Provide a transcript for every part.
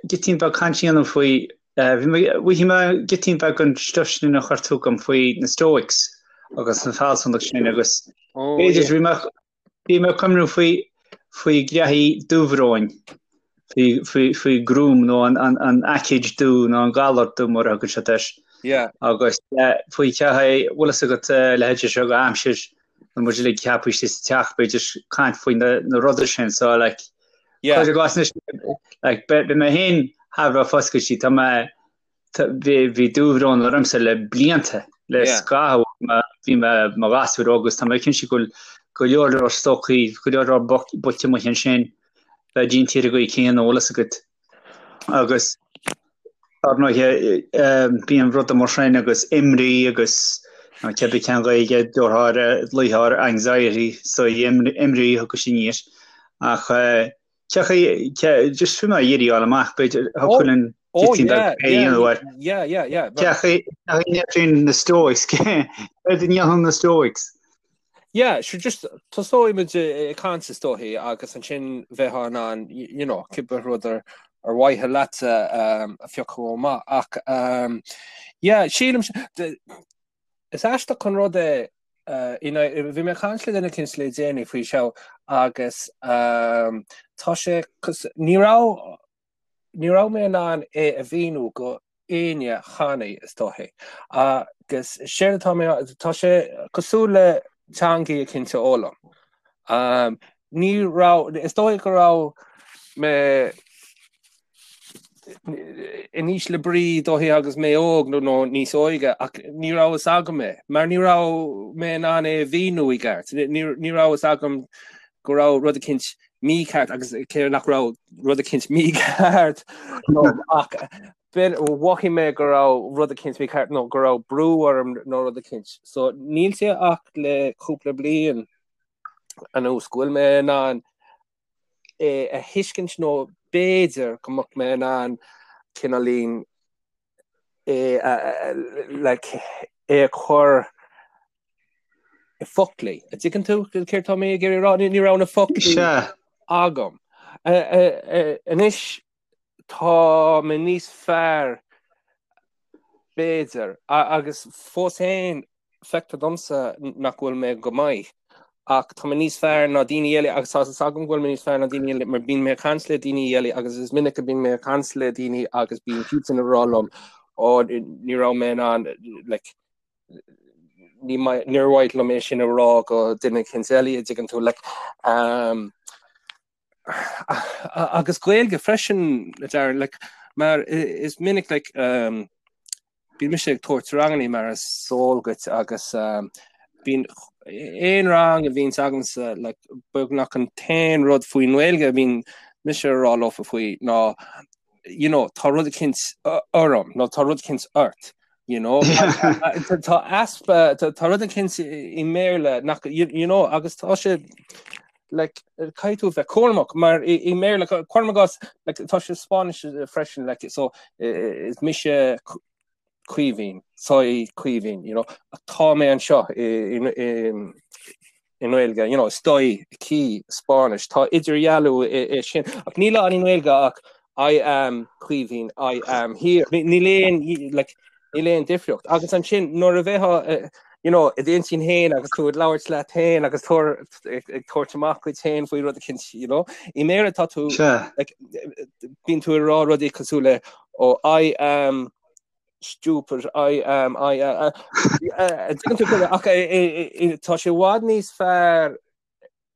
Gitín beag caint a dhéanamh faoi, bhí mé, mhothaigh mé gitín beag an stuif sin a chuir tú chugam faoi na Stoics agus an fealsúnacht sin agus b'fhéidir bhí mé, bhí mé ag cuimhniú faoi, faoi ghraithí dúbhróin, faoi, faoi, faoi gruaim nó an, an, an aicíd dubh nó an galar dubh mar a thugann siad air. Agus faoi cheathaí, bhfuil fhios agat leithéid seo go aimsir nó muid uilig ceaptha istigh sa teach b'fhéidir caint faoi na, na rudaí sin so like Yeah. Cuir i gcás anois, like, beidh mé féin thar a bheith foscailte, tá mé, bhí, bhí dúbhrón ormsa le blianta, le Yeah. scaitheamh, ma- bhí mé mo ghasúr óg agus tá mé cinnte go bhfuil go leor leor stocaí, go leor leor buailte amuigh ansin, bheith déanta ar an gcaoi céanna, bhfuil fhios agat. Agus Ar ndóighe, bíonn rudaí mar sin agus imní agus cibé cén Ghaeilge a déarfá air, luítheoir anxiety, so imní a thugas sin air. Ach cé chaoi, just bhí mé ag iarraidh a fháil amach, b'fhéidir, thiocfadh linn gitín beag plé a dhéanamh air. Cé chaoi a ndéanann na Stoics, céard a dhéanann na Stoics? Yeah, sure, just tosóidh muid ag caint is dóichí agus ansin bheifeá in ann, you know, cibé rud ar ar mhaithe leatsa um, a phiocadh amach. Ach um, yeah, sílim is aisteach an rud é uh, you know, bhí mé ag caint le duine eicínt le déanaí faoi seo agus um, tá sé ní raibh Ní raibh mé in ann é a mhíniú go éinne cheana, is dóichí. Agus séard atá mé, tá sé cosúil le teangaí eicínt a fhoghlaim. Ní raibh, is dóigh go raibh mé in ísle brí dóichí agus mé óg nó nó níos óige ach ní raibh fhios agam é, mar ní raibh mé in ann é a mhíniú i gceart. Ní raibh fhios agam go raibh rud eicínt mícheart agus cé nach raibh rud eicínt mícheart ach mhothaigh mé go raibh rud eicínt mícheart nó go raibh brú orm nó rud eicínt. So níl sé ach le cúpla bliain anuas go bhfuil mé in ann é a thuiscint nó b'fhéidir go mbeadh mé in ann cineáilín é a like é a chur i bhfoclaí. An dtuigeann tú céard tá mé ag iarraidh a rá? Ní raibh na foclaí agam. Anois tá mé níos fearr b'fhéidir agus fós féin feictear domsa nach bhfuil mé go maith ach tá mé níos fearr ná daoine eile agus tá fhios agam go bhfuil mé níos fearr ná daoine eile mar bíonn mé ag caint le daoine eile agus is minic a bíonn mé ag caint le daoine agus bíonn siadsan ag rá liom ó ní raibh mé in ann like ní níor mhaith liom é sin a rá go duine eicínt eile an dtuigeann tú like um, agus Gaeilge freisin a Darren like mar is minic like um, bíonn mise ag tabhairt rangannaí mar is eol duit agus um, bíonn aon rang a bhíonns agamsa like beagnach an t-aon rud faoin nGaeilge a bhíonn mise a rá leofa faoi ná you know tá rud eicínt orm nó tá rud eicínt ort you know tá easpa tá rud eicínt i mBéarla nach you, you know agus tá sé like caithfidh tú bheith cúramach mar i i mBéarla cuirim i gcás like tá sé Spáinnis freisin like so is mise Caoimhín soy Caoimhín you know ach tá mé anseo i i i i nGaeilge you know estoy aquí Spáinnis tá idirdhealú i i sin ach níl ann i nGaeilge ach I am Caoimhín I am here níl aon like níl aon difríocht agus ansin nuair a bheifeá you know i d'intinn féin agus tú ag labhairt leat féin agus tú ag tabhairt amach duit féin faoi rud eicínt you know i mBéarla tá tú like bíonn tú ag rá rudaí cosúil le oh I am stupid I am I am tuigeann tú ach tá sé i bhfad níos fearr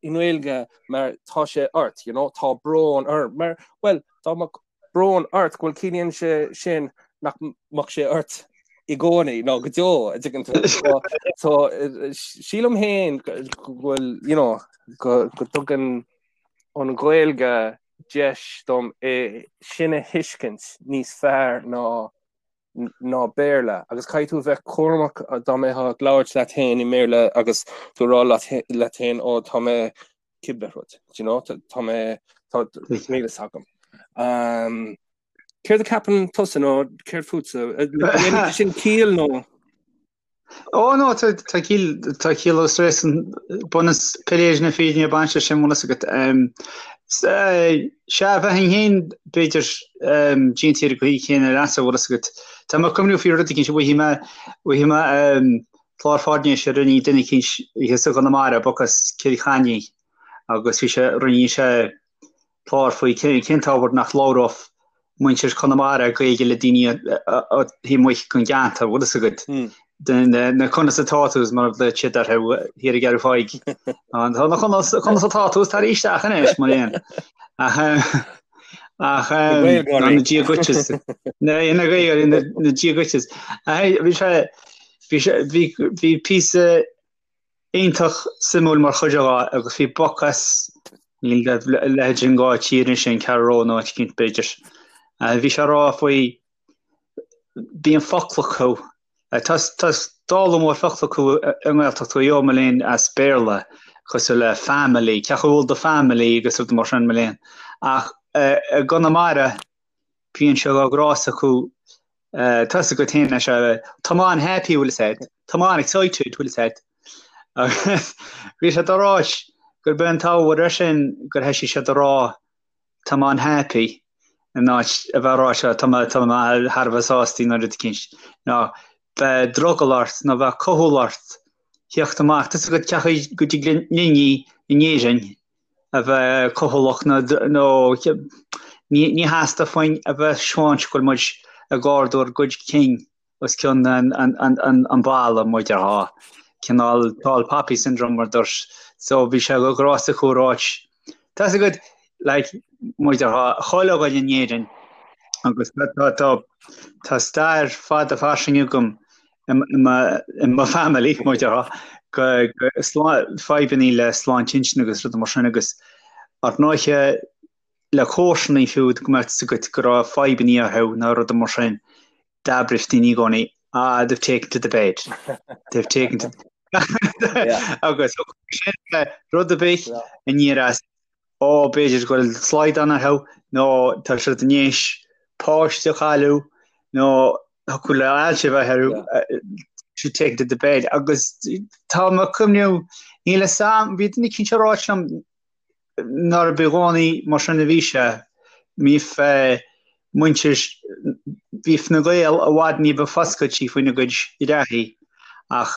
i nGaeilge mar tá sé ort, you know, tá brón orm, mar, bhuel, dá mbeadh brón ort, go bhfuil ciallaíonn sé sin nach mbeadh sé ort i gcónaí nó go deo, an dtuigeann tú. So, so sílim féin go bhfuil, you know, go, go dtugann an Ghaeilge deis dom é sin a thuiscint níos fearr ná ná Béarla, agus caithfidh tú a bheith cúramach dá mbeifeá ag labhairt leat féin i mBéarla agus tú ag rá leat féin ó tá mé cibé rud, do you know, tá mé tá níl fhios agam. Um, céard a ceapann tusa nó céard fútsa? Sin ciall nó? Ó no, tá ciall tá ciall agus réasún bunús piléis na fírinne ag baint leis sin bhfuil fhios agat. Sea, bheinn féin b'fhéidir déanta ar an gcaoi chéanna leatsa bhfuil fhios agat. Tá mé ag cuimhniú faoi rud eicínt, bhfaighidh mé bhfaighidh mé clár faisnéise a rinne duine eicínt thíos i gConamara, boc as Cill Chainnigh agus bhí sé rinne sé clár faoi cén t-ábhar nach labhródh muintir Chonamara Gaeilge le daoine taobh amuigh den gceantar, bhfuil fhios agat. Na conas atá tú mar a ghlaoigh siad orthu thiar i gCeathrú Thaidhg. Tá na conas atá tú tar isteach anois mar aon. Ach na Dia duit na Gaeilgeoirí na Dia duit. Bhí sé bhí bhí píosa iontach suimiúil mar chuid de agus bhí boc as níl a leithéid sin de thír anois an Ceathrú Rua nó áit eicínt b'fhéidir. Bhí sé ag rá faoi bíonn focla acu tá tá dála mór focla acu i nGaeltacht Mhaigh Eo mo léan as Béarla cosúil le family, cén chaoi a bhfuil do family agus rudaí mar sin mo léan. Ach i gConamara bíonn sé de ghnás acu Tá fhios agat féin leis tá mé an-happy bhfuil fhios agat, tá mé an-excited bhfuil fhios agat. Agus bhí sé ag ráit gurb é an t-ábhar air sin gur thoisigh siad a rá tá mé an-happy in áit a bheith ag rá seo tá mé tá mé thar a bheith sásta nó rud eicínt. Nó bheadh drogall ort nó bheadh cúthail ort theacht amach. Tá fhios agat cén chaoi go dtig linne in Éirinn a bheith cúthaileach nó ní theastódh uainn a bheith ag seoint go bhfuil muid ag ardú ár gcuid cinn os cionn an bhalla mar a déarfá. Cineál tall poppy syndrome mar dúirt. So bhí sé de ghnás acu a ráit. Tá fhios agat like mar a déarfá chuile dhuine in Éirinn agus tá tá stair fada fairsing agam i mo family, mar a déarfá, go fadhbannaí le sláinte intinne agus rudaí mar sin agus ar ndóiche le comharsanaí fiú go mbeadh fhios agat go raibh fadhbannaí orthu nó rudaí mar sin d'abraíodh daoine i gcónaí ah they've taken to the bed, they've taken to agus sin rud ar bith aniar as Ó, b'fhéidir go bhfuil slaghdán orthu, nó tá siad i ndiaidh páiste a chailleadh, nó thiocfadh le ailse a bheith orthu, she's taken to the bed. Agus tá mé ag cuimhniú, níl fhios a'm, bhí duine eicínt ag ráit liom nárb i gcónaí mar sin a bhí sé, bhíodh muintir, bhíodh na Gaeil i bhfad ní ba foscailtí faoina gcuid reathaí, ach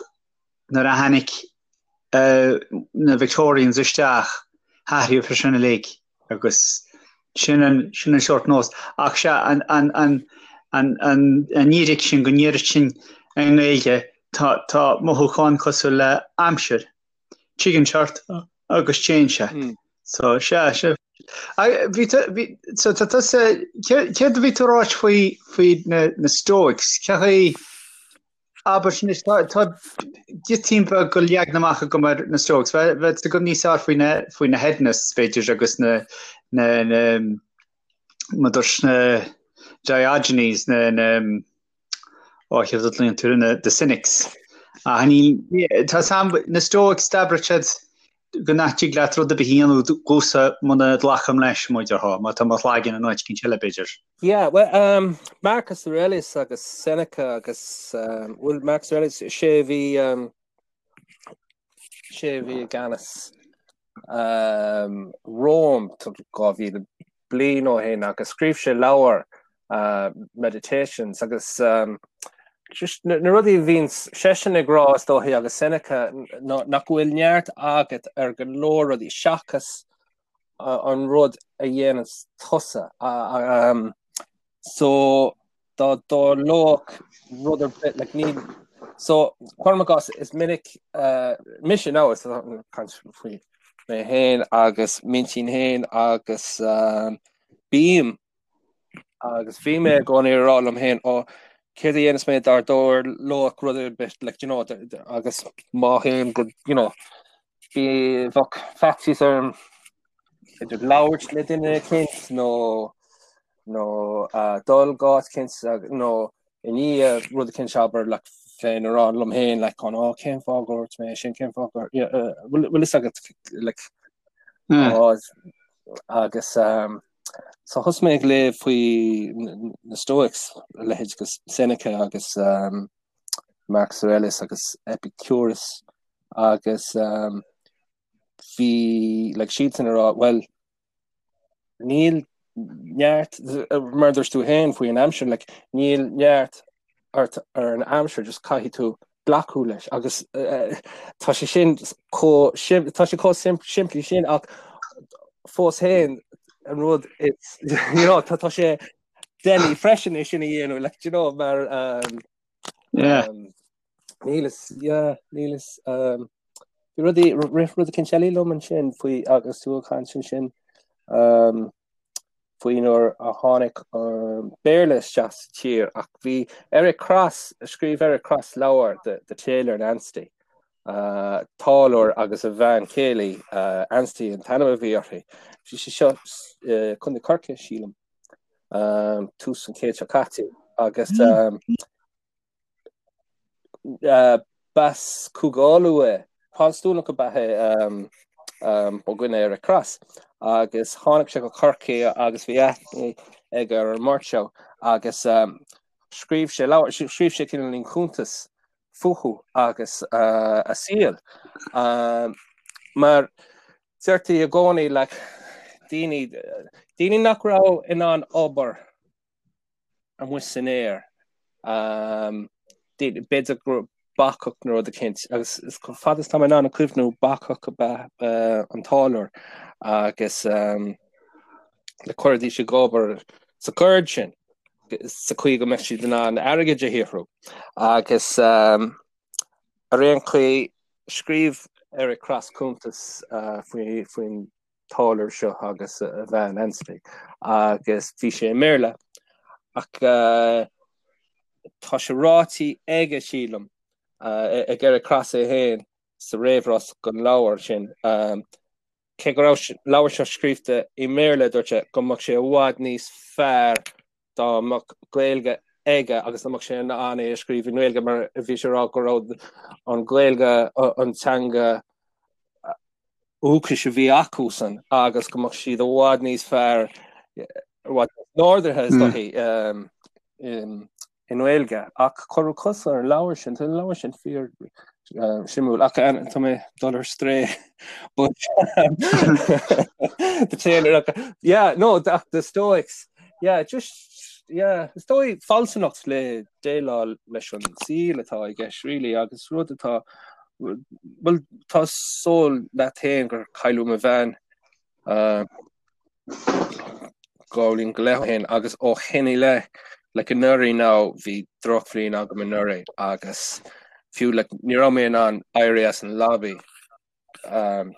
nuair a tháinig na Victorians isteach, hathraíodh é sin uilig agus sin an, sin an seort nós. Ach sea, an, an, an, an, an, an fhíric sin go ndéarfadh sinn i nGaeilge, tá, tá mothúchán cosúil le aimsir. Tigeann sé ort agus téann sé. So, sea, sea. Bhí, bhí, so tá tusa, céard a bhí tú a ráit faoi, faoi na, na Stoics? Cé chaoi, Abair anois, tá giotín beag de leagan amach agam ar na Stoics. Bheadh fhios agam níos fearr faoi na faoi na hedonists, b'fhéidir, agus na na na mar dúirt na Diogenes, na na ó chéard a ghlaonn tú na the cynics. Ach ní tá sam na Stoics d'abraigh siad go nach dtig leat rud ar bith a dhéanamh domhsa muna nglacaim leis, mar a déarfá, má tá mo chlaigeann in áit eicínt eile, b'fhéidir. Yeah, well, um, Marcus Aurelius agus Seneca agus um, well, Marcus Aurelius sé a bhí um, sé a bhí i gceannas um, Rome 2000 bliain ó shin agus scríobh sé leabhar uh, Meditations agus um, just na, na rudaí a bhíonn seisean ag rá is dóichí agus Seneca ná, nach bhfuil neart agat ar go leor rudaí seachas an rud a dhéananns tusa. Um, so dá dtarlódh rud ar bith like, ní so cuirim i gcás is minic uh, mise nó is caint faoi mé féin agus m'intinn féin agus um, bím agus bhí mé i gcónaí ag rá liom féin ó céard a dhéanfas mé dá dtarlódh rud ar bith like, you know, agus má théim go you know, bhí bheadh faitíos orm idir labhairt le duine eicínt nó nó uh, dul go áit eicínt nó i ndiaidh rud eicínt abair like, féin a rá liom féin like, an ó cén fáth gur dhúirt mé sin cén fáth gur yeah, uh, bhfuil fhios agat like, mm. ó, agus um, so thosaigh mé ag léamh faoi na Stoics a leithéid agus Seneca agus um, Marcus Aurelius agus Epicurus agus bhí like siadsan ag rá well níl neart mar dúirt tú féin faoi an aimsir like níl neart ort ar an aimsir just caithfidh tú glacadh leis agus uh, tá sé sin chomh tá sé chomh simplí sin ach fós féin an rud it's you know tá tá sé doiligh freisin é sin a dhéanamh like you know mar um, yeah. um, níl is yeah, níl is um, bhí rudaí rith rud éicint eile liom ansin faoi agus tú ag caint ansin um, faoi nuair a tháinig an Béarla isteach sa tír ach bhí Eric Cross scríobh Eric Cross leabhar The, The Tailor and Ansty uh, táilliúir agus a bhean chéile uh, Ansty an t-ainm a bhí uirthi. Bhí sé seo uh, Contae Chorcaí sílim um, tús an chéad seo caite agus um, B'as Cúige Uladh é, Protastúnach ab ea é mo dhuine Eric Cross, agus tháinig sé go Corcaigh agus bhí aithne aige ar an mbeirt seo agus scríobh sé leabhar, scríobh sé cineáilín cuntas fúthu agus a saol. Mar deirtí i gcónaí like daoine, daoine nach raibh in ann obair amuigh san aer. B'fhéidir gur bacach nó rud eicínt agus chomh fada is tá mé in ann a cuimhniú bacach ab ea an táilliúir agus le cuiridís ag obair sa gceird sin sa chaoi go mbeadh siad in ann airgead a shaothrú. Agus ar aon chaoi scríobh Eric Cross cuntas faoin táilliúir seo agus a bhean Ansty agus bhí sé i mBéarla ach tá sé ráite aige sílim ag Eric Cross é féin sa réamhrá don leabhar sin cé go raibh an leabhar seo scríofa i mBéarla dúirt sé go mbeadh sé i bhfad níos fearr dá mbeadh Gaeilge aige agus dá mbeadh sé in ann é a scríobh i nGaeilge mar bhí sé ag rá go raibh an Ghaeilge an teanga dhúchais a bhí acusan agus go mbeadh siad i bhfad níos fearr, i bhfad níos ordaithe is dóichí i nGaeilge. Ach cuireadh cos ar an leabhar sin, tá an leabhar sin fíor suimiúil ach tá mé ag dul ar strae but the tailor yeah no the, the Stoics yeah just yeah is dóigh fealsúnacht le déileáil leis an saol atá i gceist really agus rud atá Bhuel, tá súil leat féin gur cailleadh mo bhean 2 bhliain go leith ó shin agus ó shin i leith, like anuraidh now, bhí drochbhliain agam anuraidh agus fiú like ní raibh mé in ann éirí as an leabaidh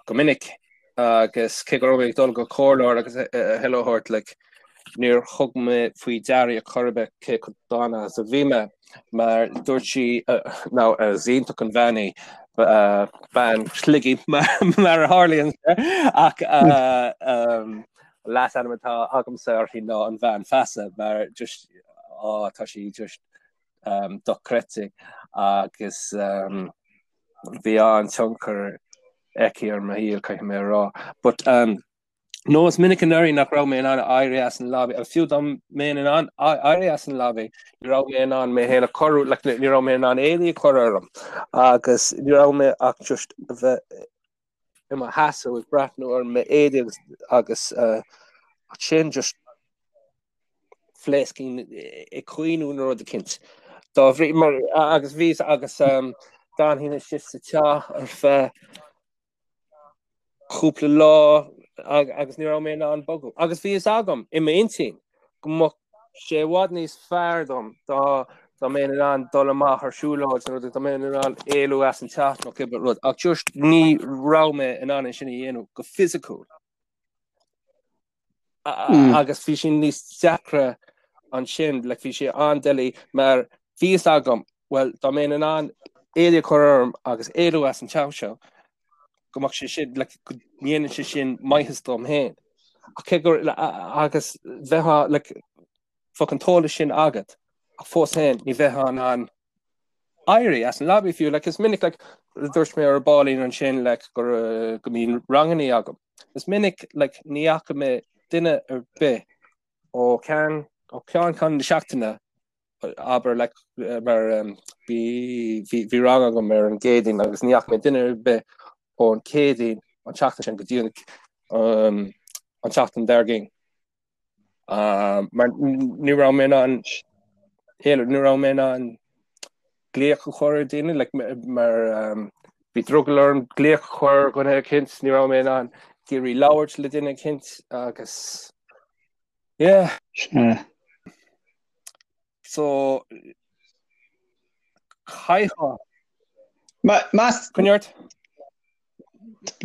go minic agus cé go raibh mé ag dul go comhairleoir agus a thuilleadh a thabhairt like níor thug mé faoi deara ar chor ar bith cé chomh dona is a bhí mé mar dúirt sí now is iontach an bhean í bean Shligigh mar a tharlaíonn ach leasainm atá agamsa uirthi ná an bhean feasa mar just á tá sí just dochreidte agus bhí an-tionchar aici ar mo shaol caithfidh mé a rá but um, No, is minic anuraidh nach raibh mé in ann éirí as an leabaidh, agus fiú dá mbeinn in ann éirí as an leabaidh, ní raibh mé in ann mé féin a chorrú, like, ní raibh mé in ann éadaí a chur orm, agus ní raibh mé ach just a bheith i mo sheasamh ag breathnú ar m'éadaí agus, agus uh, sin just phléascfainn ag caoineadh nó rud eicínt. Dá bhrí, mar, agus bhí, agus um, d'fhanfainn istigh sa teach ar feadh cúpla lá agus ní raibh mé in ann bogadh. Agus bhí fhios agam i m'intinn go mbeadh sé i bhfad níos fearr dom dá dá mbeinn in ann dul amach ar siúlóid nó dá mbeinn in ann éalú as an teach nó cibé rud. Ach just ní raibh mé in ann é sin a dhéanamh go fisiciúil. Agus bhí sé níos deacra ansin, like bhí sé an-doiligh mar bhí fhios agam, well dá mbeinn in ann éadaí a chur orm agus éalú as an teach seo, go mbeadh sé sin, like go ndéanann sé sin maitheas dom féin. Ach cé gur, agus bheith, like, bheadh an t-eolas sin agat, ach fós féin ní bheifeá in ann éirí as an leabaidh fiú. Like, is minic, like, dúirt mé ar baillín ansin, like, gur, uh, go mbíonn rangannaí agam. Is minic, like, ní fhaca mé duine ar bith ó ceann, ó cheann ceann na seachtaine. Abair like mar bhí bhí rang agam ar an gCéadaoin agus ní fhaca mé duine ar bith ón Chéadaoin an tseachtain sin go dtí an an tseachtain dár gcionn. Mar ní raibh mé in ann ní raibh mé in ann glaoch a chur ar daoine like mar bhí drogall orm glaoch a chur ar dhuine eicínt, ní raibh mé in ann d'iarraidh labhairt le duine eicínt agus yeah. Sea. So caithfidh. Más. Coinnigh ort.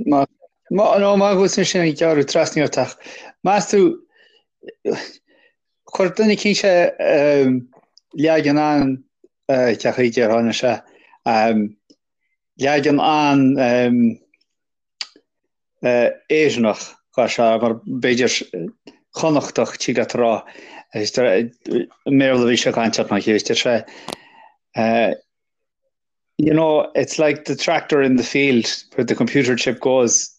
Má nó má bhfuil sin ag gearradh trasna ort ach meas tú chuir duine eicínt leagan an cén chaoi a déarfá anois é leagan an Éireannach dhá sé mar b'fhéidir Connachtach tig leat a rá i mBéarla a bhí sé ag caint ach mar deir sé You know, it's like the tractor in the field where the computer chip goes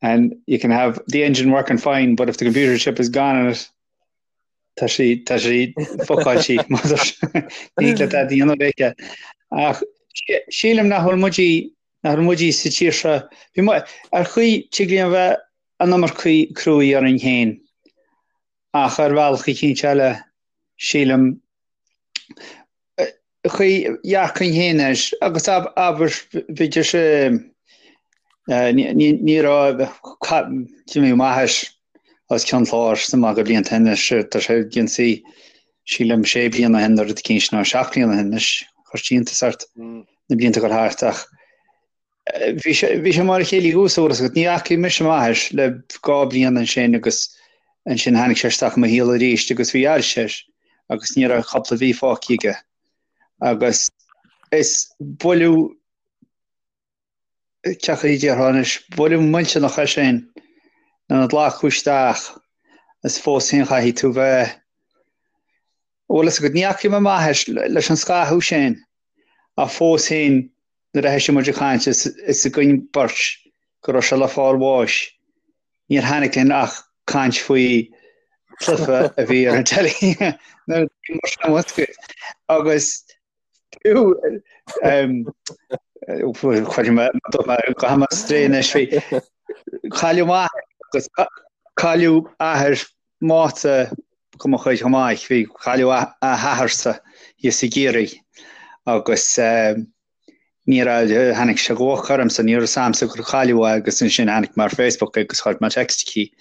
and you can have the engine working fine, but if the computer chip is gone in it, tá sí tá sí fucáilte ní le a dhéanamh léithe. Ach sílim nach bhfuil muid nach bhfuil muid sa tír seo bhí ar chaoi tig linn a bheith an iomarcaí cruaidh orainn féin ach ar bhealach eicínt eile sílim chaoi dhearcainn féin air agus abair b'fhéidir sé ní raibh d'imigh m'athair as Ceann Chláir sa maith go blianta anois tá sé ionsaí sílim sé bliana ó shin nó rud eicínt nó seacht bliana ó shin anois chuir sé iontas ort na blianta ag dul thart ach Bhí sé bhí sé mar a chéile thuas uair agus ní fhacaigh mise m'athair le 2 bliana ansin agus ansin tháinig sé isteach i mo shaol arís agus bhí ailse air agus ní raibh cúpla mhí fágtha aige agus is buille cén chaoi a déarfá anois buille millteanach é sin lena ghlacadh isteach is fós féin chaithfidh tú bheith bhfuil fhios agat ní fhacaigh mé m'athair leis an scaitheamh sin ach fós féin nuair a thoisigh muid ag caint is fhios againn beirt go raibh sé le fáil bháis, níor tháinig linn ach caint faoi chluiche a bhí ar an teilí nuair a bhí mar sin agat. Agus fiú chuir mé go mé strae anois faoi cailleadh m'athair agus cailleadh athair Máta go mo chuid chomh maith, bhí cailleadh a hathairsa thíos i gCiarraí agus ní raibh, tháinig sé go holc ormsa, ní raibh fhios a'msa gur cailleadh é agus ansin tháinig mé ar Facebook agus chuir mé text chuici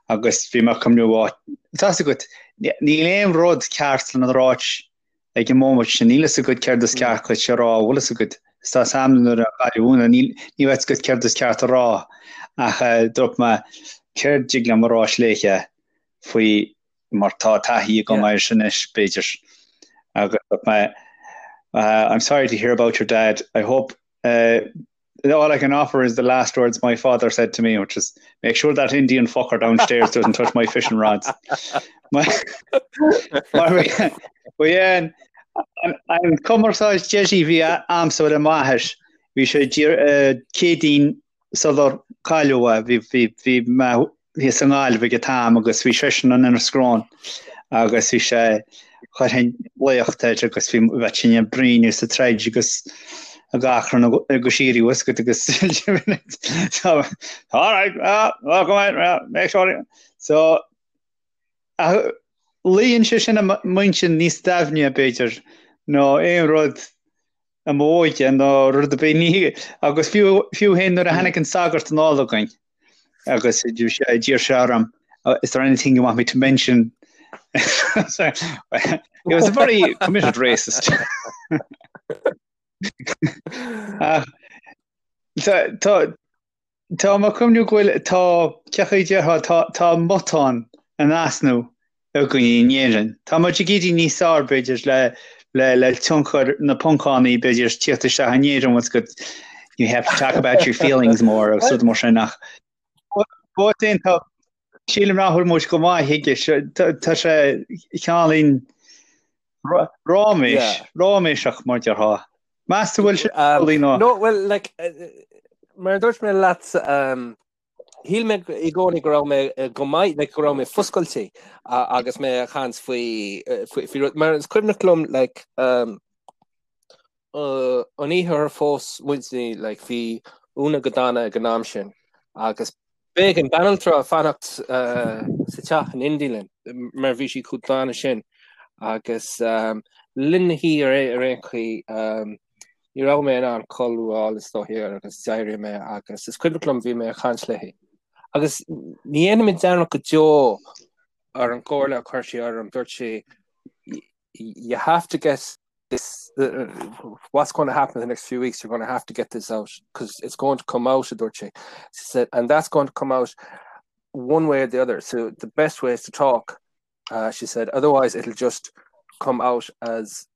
agus bhí mé ag cuimhniú, á, tá fhios agat, níl aon rud ceart lena ráit ag an móimint sin, níl fhios agat céard is ceart duit a rá, bhfuil fhios agat, is tá fhios a'm nuair a cailleadh Úna, níl, ní bheadh fhios agat céard is ceart a rá ach dúirt mé céard dtig liom a ráit léithe faoi mar tá taithí agam air sin anois, b'fhéidir. Agus dúirt mé I'm sorry to hear about your dad, I hope uh, all I can offer is the last words my father said to me, which is make sure that Indian fucker downstairs doesn't touch my fishing rods. Ba é an cumarsáid deiridh a bhí a'msa le m'athair, bhí sé Céadaoin sular cailleadh é, bhí bhí mé thíos i nGaillimh ag an t-am agus bhí seisean in Inis Gróin agus bhí sé chuirfinn glaoch air agus bhí bheadh sinn ag bruíon is ag troid agus ag achrann go síoraí bhfuil fhios agat agus so all right well, well, come on, well, make sure so luíonn sé sin i m'intinn níos doimhne b'fhéidir ná aon rud i m'óige nó rud ar bith ní agus fiú fiú féin nuair a tháinig an sagart anall againn agus d'iarr sé orm is there anything you want me to mention he was a very committed racist uh, tá tá Tá mé ag cuimhniú go bhfuil, tá, cén chaoi a déarfá, tá, tá matán in easnamh againn in Éirinn. Tá muid ag éirí níos fearr, b'fhéidir, le, le, le tionchar na poncannaí, b'fhéidir, tíocht isteach in Éirinn, bhfuil fhios agat, you have to talk about your feelings more agus rud mar sin ach fós féin tá, sílim nach bhfuil muid go maith chuige, tá, tá sé cineáilín ráiméis, ráiméiseach mar déarfá. Meas tú bhfuil sé amhlaidh nó? No, well, like, mar a dúirt mé leat. Shíl mé i gcónaí go raibh mé go maith, like, go raibh mé foscailte agus mé ag caint faoi faoi rud, mar is cuimhneach liom like, um, uh, an oíche ar phós muidne, like, bhí Úna go dona ag an am sin agus b'éigean banaltra fanacht uh, sa teach in éindí linn mar bhí sí chomh dona sin agus um, linn na hoíche ar ar aon chaoi um, Ní raibh mé in ann codladh is dóiche agus d'éirigh mé agus is cuimhneach liom bhí mé ag caint léi. Agus ní dhéanfaidh mé dearmad go deo ar an gcomhairle a chuir sí orm, dúirt sí you have to get this uh, what's going to happen in the next few weeks you're going to have to get this out because it's going to come out a dúirt sí. She said and that's going to come out one way or the other so the best way is to talk uh, she said otherwise it'll just come out as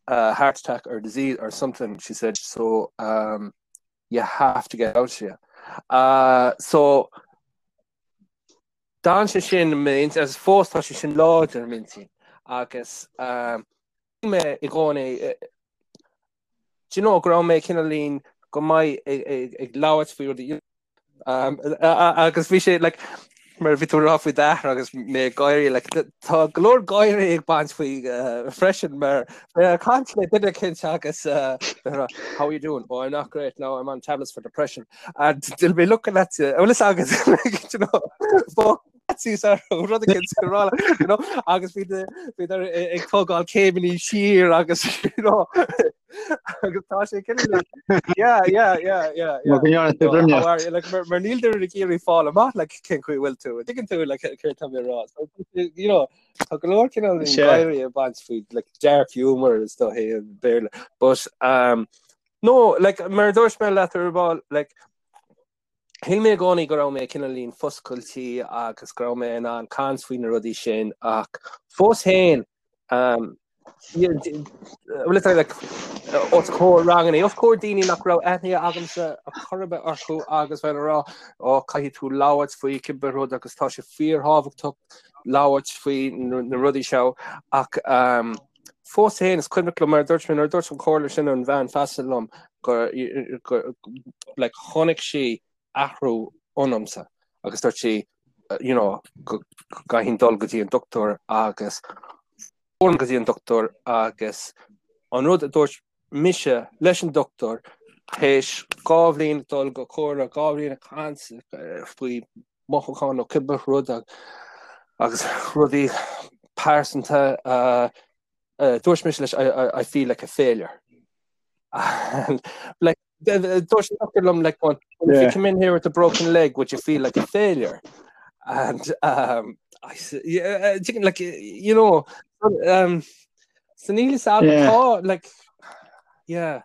a heart attack or disease or something she said so um, you have to get out here uh, so D'fhan sé sin agus fós tá sé sin láidir i m'intinn agus um, mé i gcónaí eh, do you know go raibh mé cineáilín go maith ag, ag, ag labhairt faoi rudaí Um, agus bhí sé like, mar bhí tú ag rá faoi d'athair agus mé ag gáirí like, tá go leor gáirí ag baint faoi uh, freisin mar uh, caint le duine éicint agus uh, how are you doing? Oh, I'm not great now I'm on tablets for depression and they'll be looking at you well, agus like, you know, rud you know, agus bhí ag tógáil céimeanna siar agus you know, agus tá sé yeah yeah yeah yeah yeah like mar níl duine ag iarraidh fáil amach like cén chaoi bhfuil tú tuigeann tú like céard tá mé rá so you know tá go leor cineál gáirí ag baint faoi like dark humor is dóiche i Béarla but um no like mar dúirt mé leat ar ball like Shíl mé i gcónaí go raibh mé cineáilín foscailte agus go raibh mé in ann caint faoi na rudaí sin ach fós féin bhfuil like, os comhair ranganna, os comhair daoine nach raibh aithne agamsa ar chor ar bith orthu agus bheith ag rá ó caithfidh tú labhairt faoi cibé rud agus tá sé fíorthábhachtach labhairt faoi na rudaí seo ach um, Fós féin, is cuimhneach liom mar a dúirt mé, nuair a dúirt an chomhairle sin an bhean feasa liom gur, like, chonaic sí athrú ionamsa agus dúirt sí, you know, go gcaithfinn dul go dtí an dochtúir agus go dtí an dochtúir agus an rud a dúirt mise leis an dochtúir théis 2 bhliain dul go comhairle, 2 bhliain ag caint faoi mothúcháin nó cibé rud agus rudaí pearsanta dúirt mise leis I feel like a failure. And like dúirt an doctor liom like well, if you come in here with a broken leg would you feel like a failure? And um, I said, yeah, uh, like you know um, so níl a fhios agam tá like yeah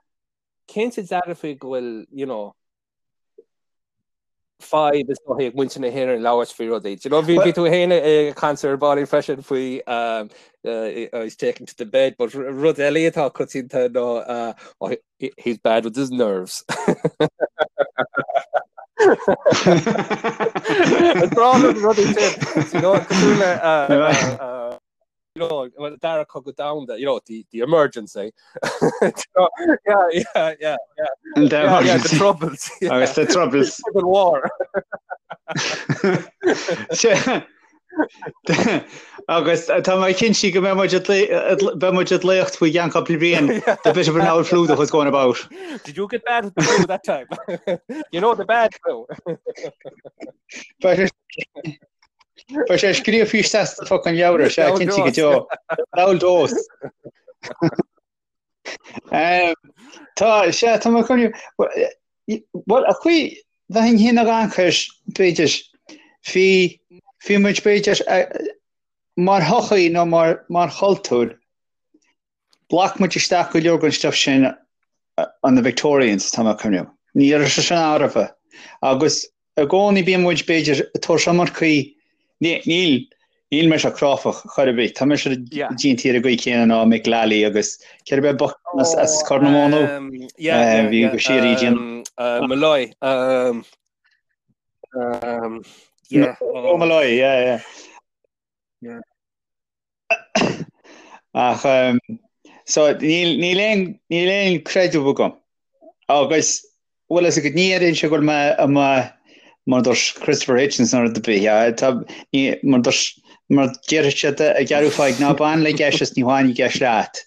cinnte dearfa go bhfuil you know fadhb is dóiche ag muintir na hÉireann labhairt faoi rudaí. Do you know, bhí bhí tú féin ag caint ar ball freisin faoi um, uh, he's taken to the bed, but rud eile atá coitianta ná uh, oh, he, he's bad with his nerves. Rudaí sin, you know, cosúil le uh, uh, uh, you know, well, Dara Cogadh Domhanda, you know, the, the emergency. you know, yeah, yeah, yeah, yeah. And the yeah, yeah, the troubles. Yeah. Agus the troubles. Civil war. Agus tá mé cinnte go mbeidh muid beidh muid ag léacht faoi cheann cúpla bliain the bit of an old flu that was going about. Did you get bad flu that time? you know the bad flu. Beidh sé scríofa isteach sa fucking leabhar, sea, cinnte go deo. Leabhar dós. Tá, sea, tá mé chun, bhuel, a chaoi, bheinn féin ag amharc air, b'fhéidir, bhí, bhí muid b'fhéidir, mar shochaí nó mar, mar chultúr, Ghlac muid isteach go leor den stuif sin ó na Victorians, tá mé ag cuimhneamh. Ní raibh sé sin ann roimhe. Agus i gcónaí bíonn muid, b'fhéidir, ag tabhairt iomarcaí, níl, níl mise cráifeach chor ar bith, tá mise déanta ar an gcaoi chéanna ná Mick Lally agus céard ab é bochtán as, as Corr na Móna? Bhí go síoraí déanamh. Molloy. Yeah. Oh, Molloy, yeah, yeah. Ach so níl níl aon níl aon creideamh agam. Agus bhfuil fhios agat ní dhéarfainnse go bhfuil mé i mo Mar dúirt Christopher Hitchens nó rud ar bith, yeah, tá, ní, mar dúirt, mar déarfaidh siad i gceathrú fáidh, ná bain le geis is ní bhainfidh geis leat.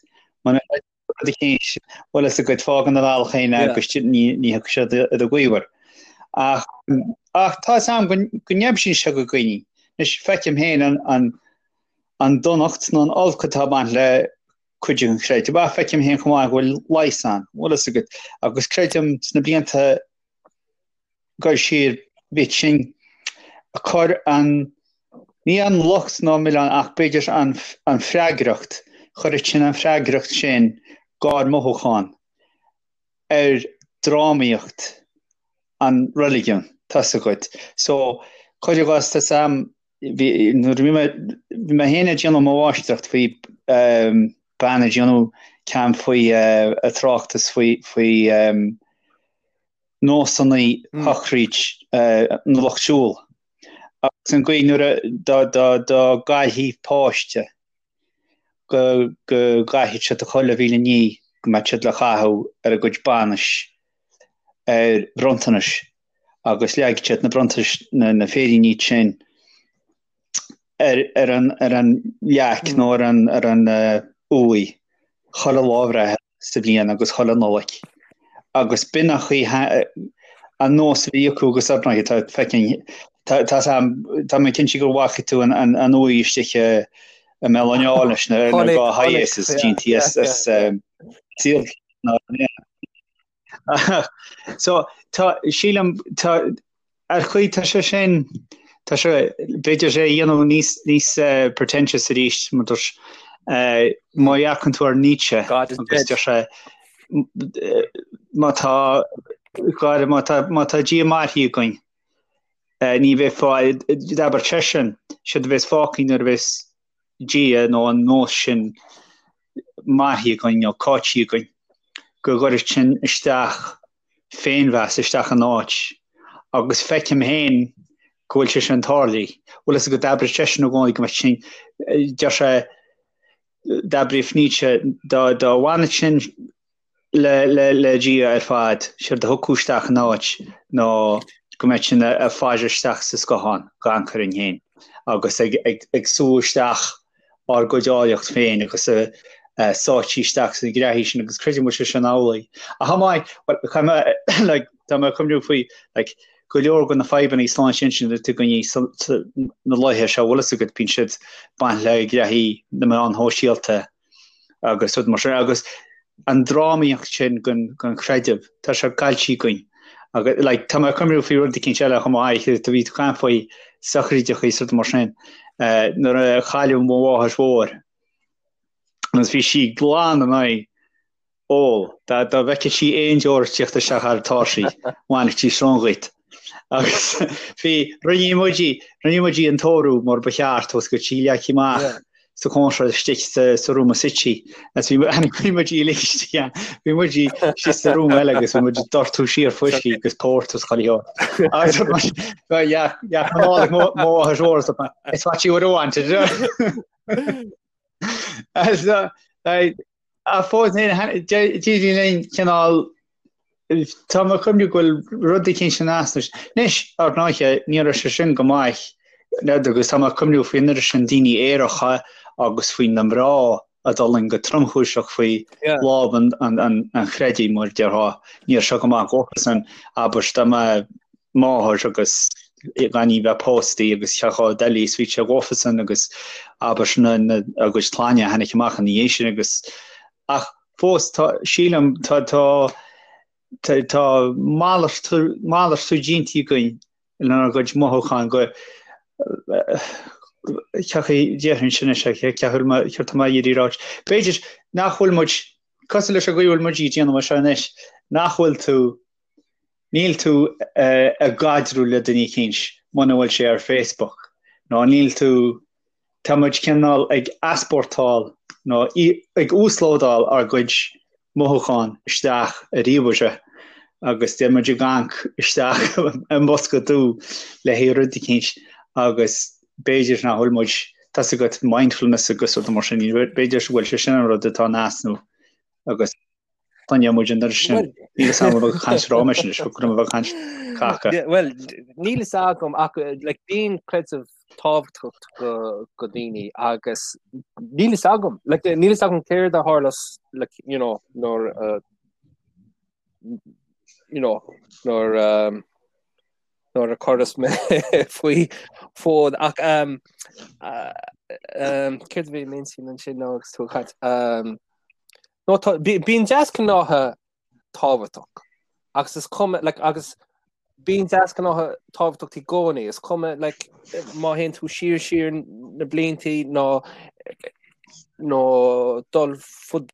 Muna rud eicínt, bhfuil fhios agat, fág ina bhealach féin é agus ní, ní thiocfaidh siad i do ghaobhar. Ach, ach tá fhios a'm go, go n-aibíonn sé go dhaoine. Anois, feicim féin an, an, an donacht nó an olc atá ag baint le cuid den chreideamh. Ach feicim féin chomh maith go bhfuil leigheas ann, bhfuil fhios agat, agus creidim sna blianta ag dul siar bhí sin ag cur an, ní an locht ná an milleán ach b'fhéidir an, an freagracht, chuireadh sin an freagracht sin dhár mothúchán ar drámaíocht an reiligiún, tá fhios agat. So, cuir i gcás, tá fhios a'm, bhí, nuair a bhí mé, bhí mé féin ag déanamh mo mháistreacht faoi bean ag déanamh ceann faoi a tráchtas faoi, faoi nósanna shochraid na lucht siúil agus an gcaoi nuair a dá dá dá gcaillfí páiste go go gcaithfeadh siad chuile mhíle ní go mbeadh siad le caitheamh ar a gcuid bainis ar bhronntanais agus leagfaidh siad na bronntanais na na féiríní sin ar ar an ar an leac nó ar an ar an uaigh chuile lá breithe sa bhliain agus chuile Nollaig agus b'in an chaoi an nós a bhí acu agus ar ndóigh tá feckin tá tá tá mé cinnte go bhfaca tú an an an uaigh istigh i i mBéal an Átha leis na na Chonaic dhá chonaic Hiace is yeah déanta yeah as yeah as yeah. saol So tá sílim tá ar chaoi tá sé sin tá sé b'fhéidir sé a dhéanamh níos níos pretentious arís mar dúirt má dhearcann tú ar Nietzsche God is agus dead. deir sé má tá gáire má tá má tá Dia mairithe againn ní bheidh fáil d'abair seisean séard a bheas fágtha nuair a bheas Dia nó an nós sin mairithe againn nó caillte againn, go gcuirfidh sin isteach féinmheas isteach in áit agus feicim féin go bhfuil sé sin tarlaithe. Bhfuil fhios agat d'abraigh seisean i gcónaí go mbeadh sin, deir sé, d'abraigh Nietzsche dá dá bhfanfadh sin le le le Dia ar fad, séard a thiocfadh isteach in áit ná go mbeadh sinn ag faire isteach sa scáthán gan cur orainn féin agus ag ag ag sú isteach ár gcuid áilleacht féin agus a sáití isteach sna graithí sin agus creidim go bhfuil sé sin amhlaidh. Ach chomh maith, bhuel, caithfidh mé like tá mé ag cuimhniú faoi like go leor de na fadhbanna sláinte intinne atá againn na laethe seo, bhfuil fhios agat, bíonn siad baint le graithí na meáin shóisialta agus rud mar sin agus an drámaíocht sin den den chreideamh tá sé caillte againn agus like tá mé ag cuimhniú faoi rud eicínt eile chomh maith tá bhí tú caint faoi sochraidí is rud mar sin uh, nuair a cailleadh mo mháthair mhór agus bhí sí glan in aghaidh ól dá dá bhfeicfeadh sí aon deoir ag tíocht isteach thar an tairsigh bhainfeadh sí srón dhuit agus bhí rinne muid rinne muid an tórramh mar ba cheart agus go sí leagtha amach Yeah. sa chónra istigh sa sa rúma suite agus bhí bhí muid uilig istigh ann bhí muid istigh sa rúma eile agus bhí muid ag doirteadh siar fuiscí agus port agus chuile shórt agus bhí yeah yeah mo mo mháthair mhór so it's what you would have wanted so like Ach fós féin, d'éirigh linn cineál, tá mé ag cuimhniú go bhfuil rud eicínt in easnamh. Anois, ar ndóighe, ní raibh sé sin go maith, agus tá mé ag cuimhniú faoin oiread sin daoine aeracha agus faoi na mná a d'fhulaing go tromchúiseach faoi lámh an chreidimh, mar a déarfá. Ní raibh sé go maith dhófasan, abair, dá mbeadh máthair agus gan í bheith pósta agus cheachá deilí is bhí sé dhófasan agus abair na na a gcuid clainne a tháinig amach ina dhiaidh sin agus ach fós tá sílim tá tá tá tá malartú malartú déanta againn lenár gcuid mothúchán go ceachaí déarfainn sin is é ceathú céard tá mé ag iarraidh ráit b'fhéidir nach bhfuil muid cosúil leis an gcaoi a bhfuil muid ag déanamh seo anois nach bhfuil tú Níl tú ag caidreamh le duine eicínt muna bhfuil sé ar Facebook nó níl tú, tá muid cineál ag easpórtáil nó ag uaslódáil ár gcuid mothúchán isteach i ríomhaire agus tá muid ag amharc isteach i mbosca dubh le haghaidh rud eicínt agus b'fhéidir nach bhfuil muid, tá's agat mindfulness agus rud mar sin, b'fhéidir go bhfuil sé sin an rud atá in easnamh agus. Coinneoidh muid an oiread sin. Níl fhios agam an bhfuil caint roimis anois, go raibh mé ag caint caca. Bhuel, níl fhios agam ach like, bíonn creideamh tábhachtach go, go daoine agus níl fhios agam, like, níl fhios agam céard a tharla like, you know, nuair uh, you know, nuair um, nuair a cuireadh mé faoi fód ach um, uh, um, céard a bhí i m'intinn ansin nó agus tú ag caint um, nó tá bíonn deasghnátha tábhachtach agus is cuma like, agus bíonn deasghnátha tábhachtach i gcónaí is cuma like, má théann tú siar siar na bliantaí nó nó dul fud,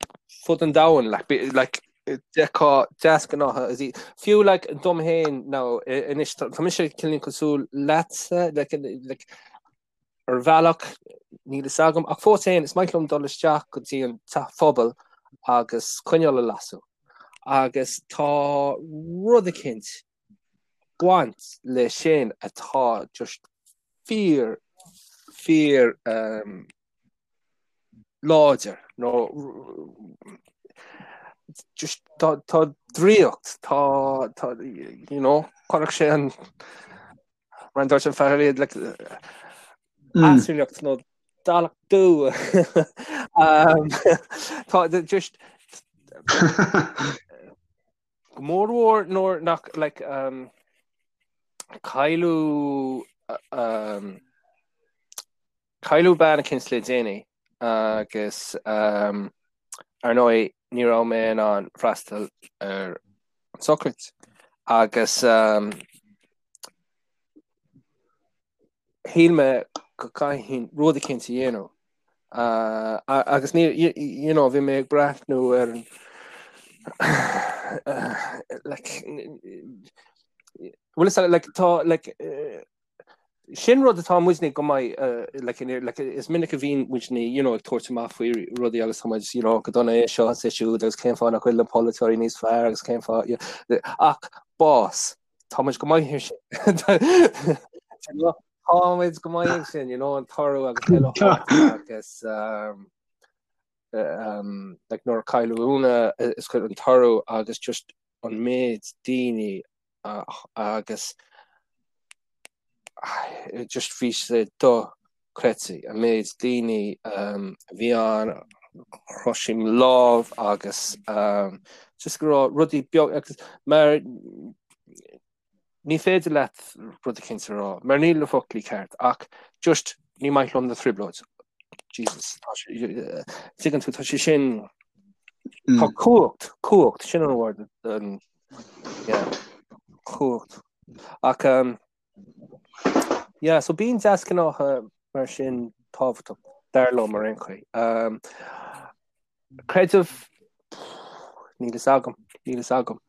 fud an domhain like, like, d'fheicfeá deasghnátha is í fiú like dom féin nó anois tá mise cineál cosúil leatsa like, like, ar bhealach níl fhios agam ach fós féin is maith liom dul isteach go dtí an teach phobail agus coinneal a lasadh agus tá rud eicínt ag baint le sin atá just fíor fíor um, láidir nó just tá tá draíocht tá tá you know chuirfeadh sé an mar a dúirt an fear iad like easumhlaíocht nó dallach dú um, tá just go mór mhór nuair nach like um, cailleadh um, Cailleadh bean eicínt le déanaí agus ar ndóigh ní raibh mé in ann freastal ar an sochraid agus shíl mé go gcaithfinn rud eicínt a dhéanamh agus ní you know bhí mé ag breathnú ar an like bhfuil fhios like tá like Sin rud atá muidne go maith, like, like, is minic a bhíonn muidne, you know, ag tabhairt amach faoi rudaí agus tá muid, you know, go dona é seo is é siúd agus cén fáth nach bhfuil na polaiteoirí níos fearr agus cén fáth, you know, ach bás, tá muid go maith ar sin. Tá muid go maith ag sin, you know, an toradh agus eile agus um, um, like, nuair a cailleadh Úna is cuid an toradh agus just an méid daoine agus just bhí sé dochreidte an méid daoine a bhí ann, chroith siad mo lámh agus just go raibh rudaí beag agus mar ní féidir leat rud eicínt a rá mar níl na foclaí ceart ach just ní maith liom na trioblóid. Jesus, tá sé, tuigeann tú, tá sé sin, tá cumhacht, cumhacht, sin an word, an, Yeah. Cumhacht. Ach um, yeah, so bíonn deasghnátha mar sin tábhachtach dar liom ar aon chaoi. Um, creideamh níl fhios agam, níl fhios agam.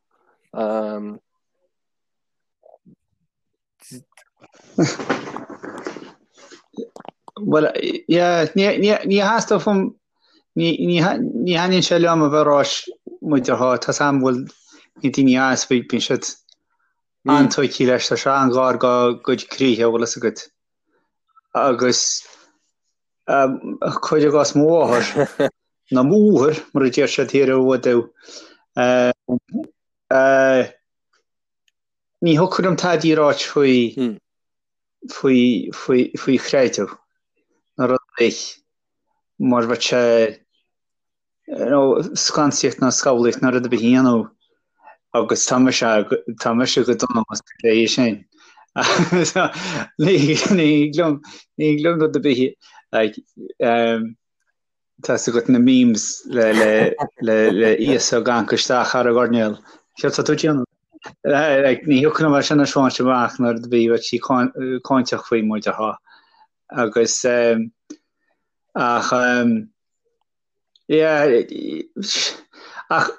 Um, Bhuel, yeah, ní ní theastódh uaim, ní ní ní thaitníonn sé liom a bheith ag ráit muid ar thá, tá 's a'm bhfuil na daoine as bhí bíonn siad an-tóigthe leis, tá sé an-ghar dá gcuid croíthe, bhfuil fhios agat. Agus cuir i gcás mo mháthair, nó m'athair, mar a deir siad thiar i bhFuadú, Ní thiocfadh liom tadaí a ráit faoi faoi faoi faoi chreideamh nó rud ar bith mar bheadh sé you know scansaíocht nó scabhlaíocht nó rud ar bith a dhéanamh agus tá mise tá mise go dona más é sin. Ní ní thig liom ní thig liom rud ar bith like um, Tá 's agat na memes le le le le Íosa ag amharc isteach thar an gcoirnéal. Céard tá tú ag déanamh? Like, ní thiocfadh liom é sin a thaispeáint amach nuair a bhí bheadh sí cáinteach faoi muid a thá. Agus um, ach um, yeah, ach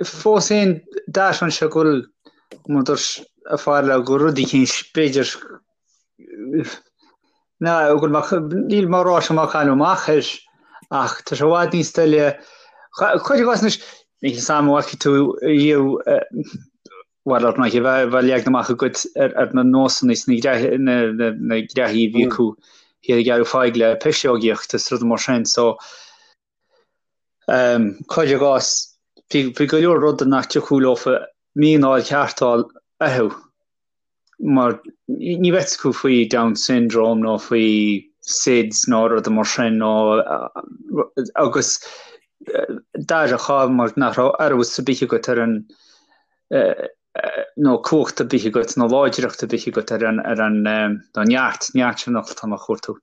fós féin d'aithneoinn sé go bhfuil mar dúirt a fear le go rud eicínt b'fhéidir ná go bhfuil mé níl mé ag rá seo mar cailleadh amach air ach tá sé i bhfad níos doiligh cuir i gcás anois níl fhios a'm an bhfaca tú riamh bhuel ar ndóigh bheadh bheadh leagan amach agat ar ar na nósanna is na na na na graithí a bhí acu thiar i gCeathrú Thaidhg le piseogaíocht is rudaí mar sin so Cuir i gcás. Bhí go leor rudaí nach dtiocfadh leofa míneáil ceart a fháil orthu mar ní raibh fhios acu faoi Down syndrome nó faoi SIDS nó rudaí mar sin nó agus d'athródh mar nach raibh eolas ar bith agat ar an nó cumhacht ar bith agat nó láidreacht ar bith agat ar an ar an nó neart, neart sin an focal atá mé a chuartú,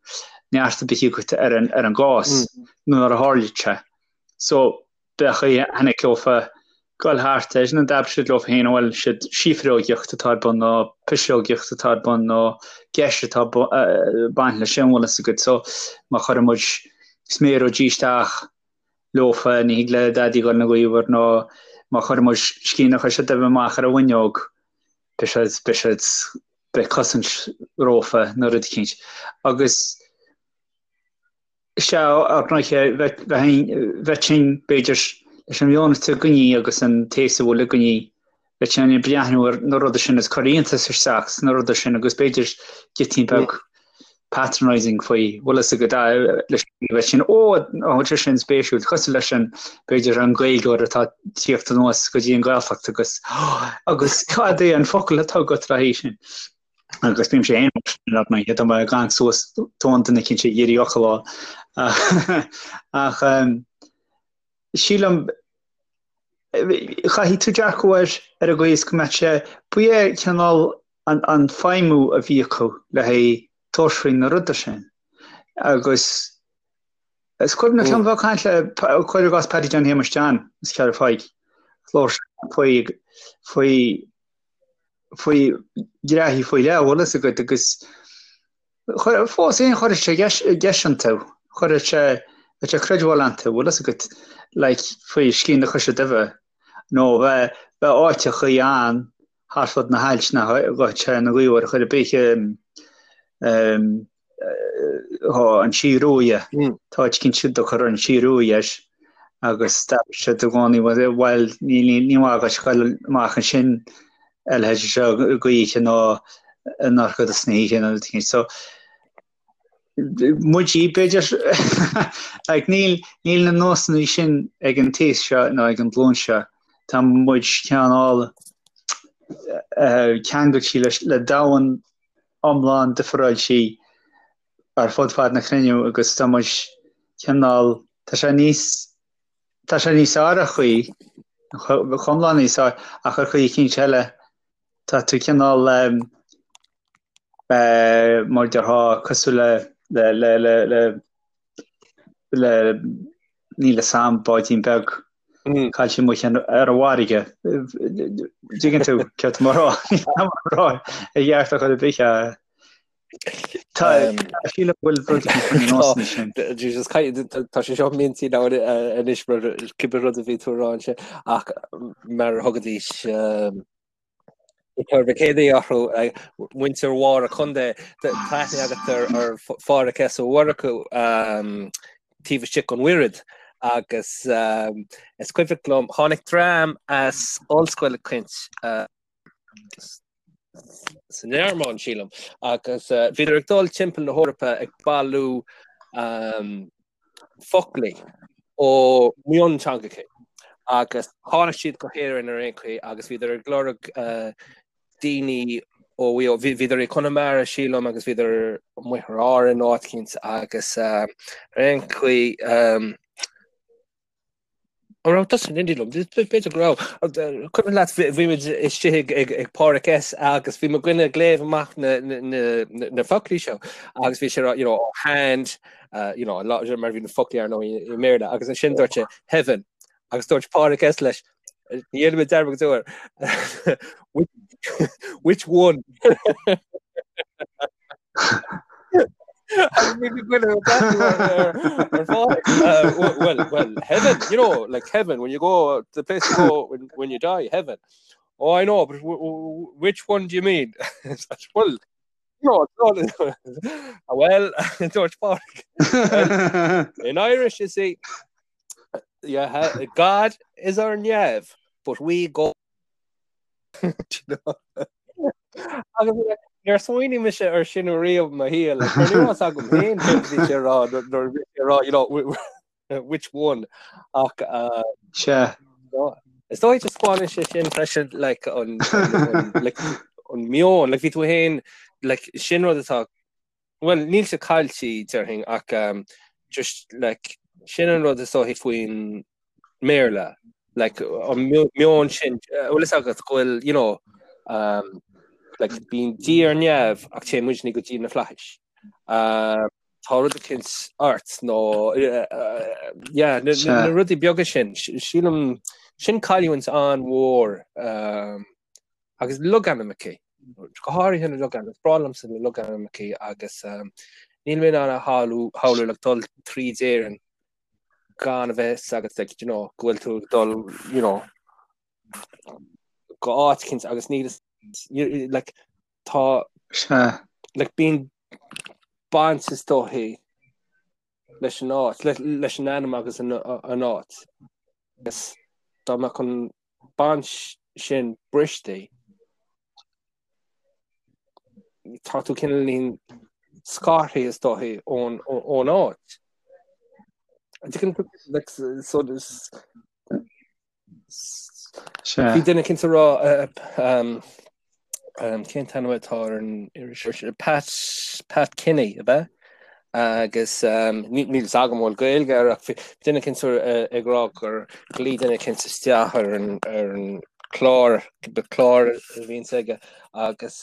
neart ar bith agat ar an ar an gcás nuair a tharlaíonn sé. So b'é chaoi a tháinig leofa goil thart air nó d'abair siad leo féin bhuel siad síofrógaíocht atá ar bun nó piseogaíocht atá ar bun nó geis atá baint leis sin bhfuil fhios agat so má chuireann muid sméaróidí isteach leofa ní thig le daidí goil 'na ghaobhar nó má chuireann muid scian a choise duibhe amach ar an bhfuinneog beidh siad beidh siad beidh cosaint rófa nó rud eicínt agus Sea, ar ndóighe, bheadh sinn, b'fhéidir, leis an meon atá againne agus an taos a bhfuil againne, bheadh sinn ag breathnú ar na rudaí sin is cur iontas isteach sna rudaí sin agus b'fhéidir giotín beag patronising faoi, bhfuil fhios agat, leis bheadh sinn, ó, tá sé sin spéisiúil, cosúil leis an, b'fhéidir, an Gaeilgeoir atá ag tíocht anuas go dtí an Ghaeltacht agus, agus cad é an focal atá agat le haghaidh sin? agus bímse féin mar sin ar ndóighe, tá mé ag amharc suas tóin duine eicínt ag iarraidh fhocal a fháil. Ach sílim, chaithfidh tú dearcadh air ar an gcaoi is go mbeadh sé, ba é cineál an, an feidhmiú a bhí acu le haghaidh tabhairt faoi na rudaí sin. Agus is cuimhneach liom bheith ag caint le, cuir i gcás Paddy John Shéamuis John, as Ceathrú Phaidhc, labhair sé faoi, faoi faoi ghraithí faoi leith, bhfuil fhios agat, agus fós féin chuirfeadh sé geis iontu, chuirfeadh sé, bheadh sé creidbheáil iontu, bhfuil fhios agat, like, faoi scian na coise duibhe, nó bheadh, bheadh áiteachaí ann thart fud na hailt nach ghabhfadh sé ina ghaobhar ar chor ar bith, Tá an Sí Ruaidhe, tá áit eicínt a dtugtar an Sí Ruaidhe air agus d'abair siad i gcónaí bhuel ní maith dhuit goil amach ansin a leithéid seo gaoithe nó i ndorchadas na hoíche nó rud eicínt. So muid b'fhéidir like níl níl na nósanna sin ag an taos seo nó ag an ghlúin seo. Tá muid cineál ceangailte leis le domhan iomlán difreáilte ar fud fad na cruinne agus tá muid cineál, tá sé níos, tá sé níos fearr ar chaoi, iomlán níos fearr, ach ar chaoi eicínt eile tá tú cineál mar a déarfá cosúil le, le, le, le, le, le, níl fhios a'm, báidín beag caillte amuigh ar an bhfarraige. Dtuigeann tú céard tá mé a rá? Níl mé a rá i gceart ar chor ar bith. Tá sílim go bhfuil rud éigin faoi na nósanna sin. Jesus, tá sé seo m'intinn anois mar cibé rud a bhí tú a rá ansin ach mar a thugaidís Tar Mhic Éadaigh orthu, muintir Mháire Contae, tá aithne agat ar Phádhraic S. Ó Murchú taobh istigh den Mhuiread agus is cuimhneach liom, tháinig dream as ollscoil eicínt sa nGearmáin, sílim, agus bhíodar ag dul timpeall na hEorpa ag bailiú foclaí ó mhionteangacha agus tháinig siad go hÉirinn ar aon chaoi agus bhíodar ag lorg daoine ó bhíodar i Conamara sílim agus bhíodar amuigh ar Árainn áit eicínt agus ar aon chaoi An raibh tusa in éindí liom? B'fhéidir go raibh. Cuimhin leat bhí muid istigh ag ag Pádraic S agus bhí mo dhuine ag léamh amach na na na foclaí seo agus bhí sé you know, oh, hand uh, you know, mar bhí na foclaí ar ndóigh i mBéarla agus ansin dúirt sé heaven agus dúirt Pádraic S leis ní dhéanfaidh mé dearmad go deo air which one? Well, well, heaven, you know, like heaven, when you go, the place you go when, when you die, heaven. Oh, I know, but which one do you mean? well, no, no, well, dúirt Pádraic. Well, in Irish, you see, yeah, God is ar neamh, but we go Agus níor smaoinigh mise ar sin riamh mo shaol, like, ní raibh agam féin céard a bhí sé a rá nuair a bhí sé a rá, you know, which one ach uh, Sea. Is dóigh taispeánann sé sin freisin like an like an meon like bhí tú féin like sin rud atá well níl sé caillte déarfainn ach um, just like sin an rud is dóichí faoin mBéarla like an meon sin eh, bhfuil fhios agat go bhfuil you know um, like bíonn Dia ar neamh ach téann muidne go dtí na flaithis. Um, tá rud eicínt ort nó yeah, na, na, na rudaí beaga sin sílim sin cailliúint an-mhór um, agus logainmneacha go háirithe na logainmneacha is breá liomsa na logainmneacha agus um, níl mé in ann a shamhlú shamhlú like, dul tríd Éirinn gan a bheith fhios agat like, you know, go bhfuil tú ag dul you know, go áit eicínt agus níl like, tá like, bíonn baint is dóichí leis an áit, leis an ainm agus an áit. Agus dá mbeadh an baint sin briste, tá tú cineáilín scartha is dóichí ón ón áit. Like, so this, Bhí duine eicínt ag rá cén t-ainm atá ar an iriseoir Pat Pat Kenny ab ea? Agus níl fhios agam an bhfuil Gaeilge air ach bhí duine eicínt ag rá gur ghlaoigh duine eicínt isteach ar an ar an chlár clár a bhíonns aige agus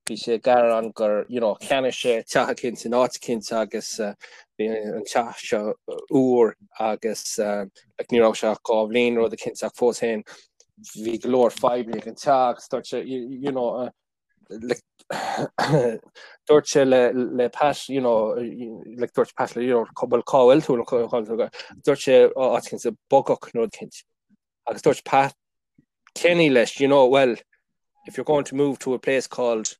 bhí sé ag gearán gur you know cheannaigh sé teach eicínt in áit eicínt agus bhí an teach seo úr agus like ní raibh sé ach 2 bhliain rud eicínt ach fós féin bhí go leor fadhbanna ag an teach agus dúirt sé you know like dúirt sé le le Pat you know like dúirt Pat le you know cá bhfuil cá bhfuil tú nó cá bhfuil tú dúirt sé áit eicínt sa Bogach nó rud eicínt agus dúirt Pat Kenny leis, you know, well, if you're going to move to a place called,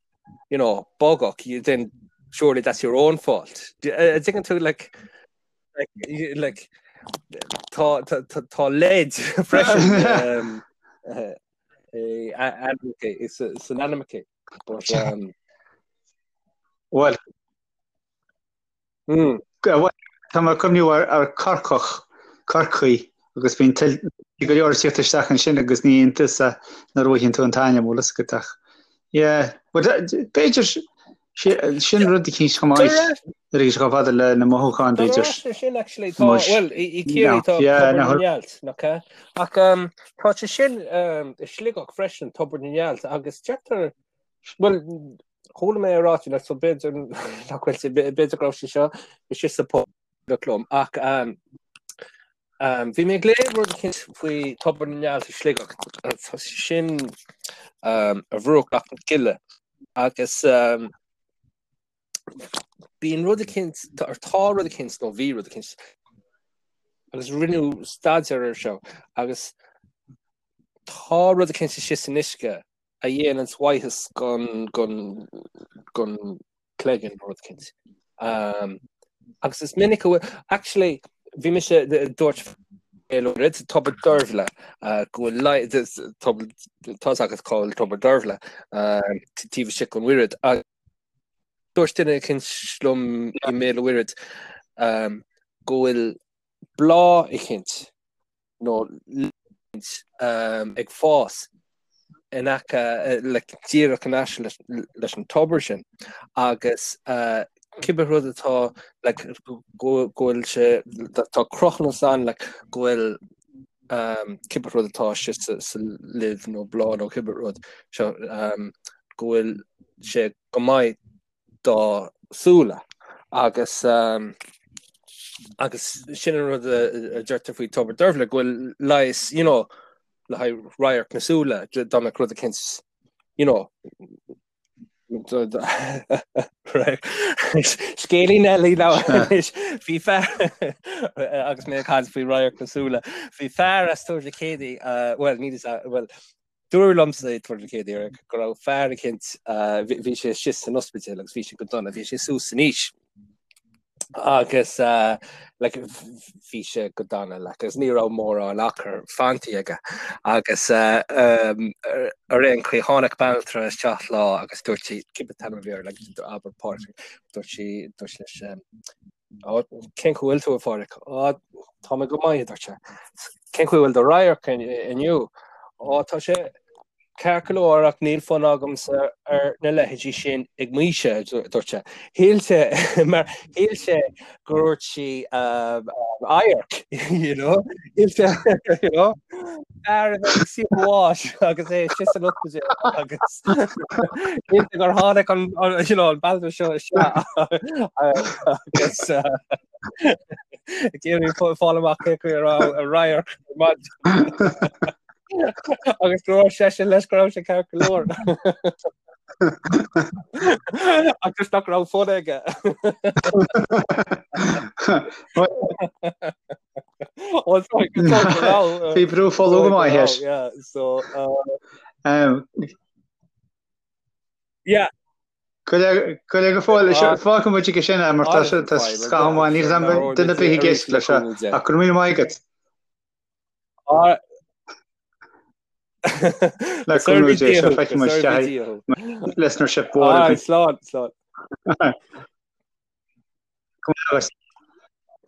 you know, Bogach, you, then surely that's your own fault. An dtuigeann tú, like, like, like tá, tá, tá, tá leid freisin um, uh, uh, san ainmneacha. But, um, well, Tá mé ag cuimhniú ar Corcach, Corcaigh, agus bíonn go leor ag tíocht isteach ansin agus ní iontas é nuair a fhaigheann tú an t-ainm, bhfuil fhios agat ach yeah, but b'fhéidir sin rud eicínt chomh maith nuair a bhí sé chomh fada le na mothúcháin b'fhéidir. Sin actually tá well i Ciarraí tá Tobar na nGealt nach ea? Ach tá sé sin i Sligeach freisin Tobar na nGealt agus deirtear bhuel Chuala mé é ráite like so b'fhéidir nach bhfuil sé b'fhéidir go raibh sé seo istigh sa phost liom ach um, um, bhí mé ag léamh rud eicínt faoi Tobar na nGealt i Sligeach tá sé sin um, ar bhruach Loch na Cille agus um, bíonn rud eicínt tá tá rud eicínt nó bhí rud eicínt agus rinneadh staidéar ar seo agus tá rud eicínt istigh san uisce a dhéananns mhaitheas gon gon gon cloigeann nó rud eicínt. Um, agus is minic a bhfuil actually bhí mise dúirt rud Tobar Deirbhile uh, go bhfuil tá fhios agat cá bhfuil Tobar Deirbhile uh, taobh istigh den Mhuiread dúirt duine eicínt liom i mBéal an Mhuirthead um, go bhfuil bláth eicínt nó ag fás in aice like díreach in aice leis an tobar sin agus cibé rud atá like go bhfuil sé tá cruthúnas ann like go bhfuil cibé rud atá istigh sa luibh nó bláth nó cibé rud seo go bhfuil sé go maith do súile agus agus sin an rud a deirtear faoi Tobar Deirbhile go bhfuil leigheas you know le haghaidh radharc na súile dá mbeadh rud eicínt you know Scéilín eile anois bhí fear agus mé ag caint faoi radharc na súile bhí fear as Tuar Mhic Éadaigh bhuel ní bhuel Dúradh liomsa i dTuar Mhic Éadaigh go raibh fear eicínt, bhí sé istigh san ospidéal agus bhí sé go dona, bhí sé suas in aois agus like bhí sé go dona like agus ní raibh mórán achar fanta aige agus ar aon chaoi tháinig banaltra isteach lá agus dúirt sí cibé t-ainm a bhí air like abair Pádraig dúirt sí dúirt leis Cén chaoi a bhfuil tú a Phádraig? Á tá mé go maith a dúirt sé. Cén chaoi a bhfuil do radharc inniu? Ó, tá sé ceart go leor ach níl fonn agamsa ar na leithéidí sin ag m'aois, a dúirt sé. Shíl sé, mar shíl sé gur dhúirt sí adharc, you know? Shíl sé, you know? Fear a bheith ag suí bháis agus é istigh san ospidéal agus shíl sé gur tháinig an, you know, an bealach seo isteach agus ag iarraidh fáil amach cé chaoi a raibh a radharc ar maidin. Agus go raibh seisean leis go raibh sé ceart go leor. Agus nach raibh fonn aige. Bhí brú folú go maith leis. Yeah. Cuir go fóill fágfaidh muid aige sin é mar tá sé tá scaitheamh amháin níl duine ar bith ag éisteacht leis seo ach go raibh míle maith agat. Le cúnamh Dé seo feicfidh muid isteach listenership mhór againn. Slán, slán. Go maith.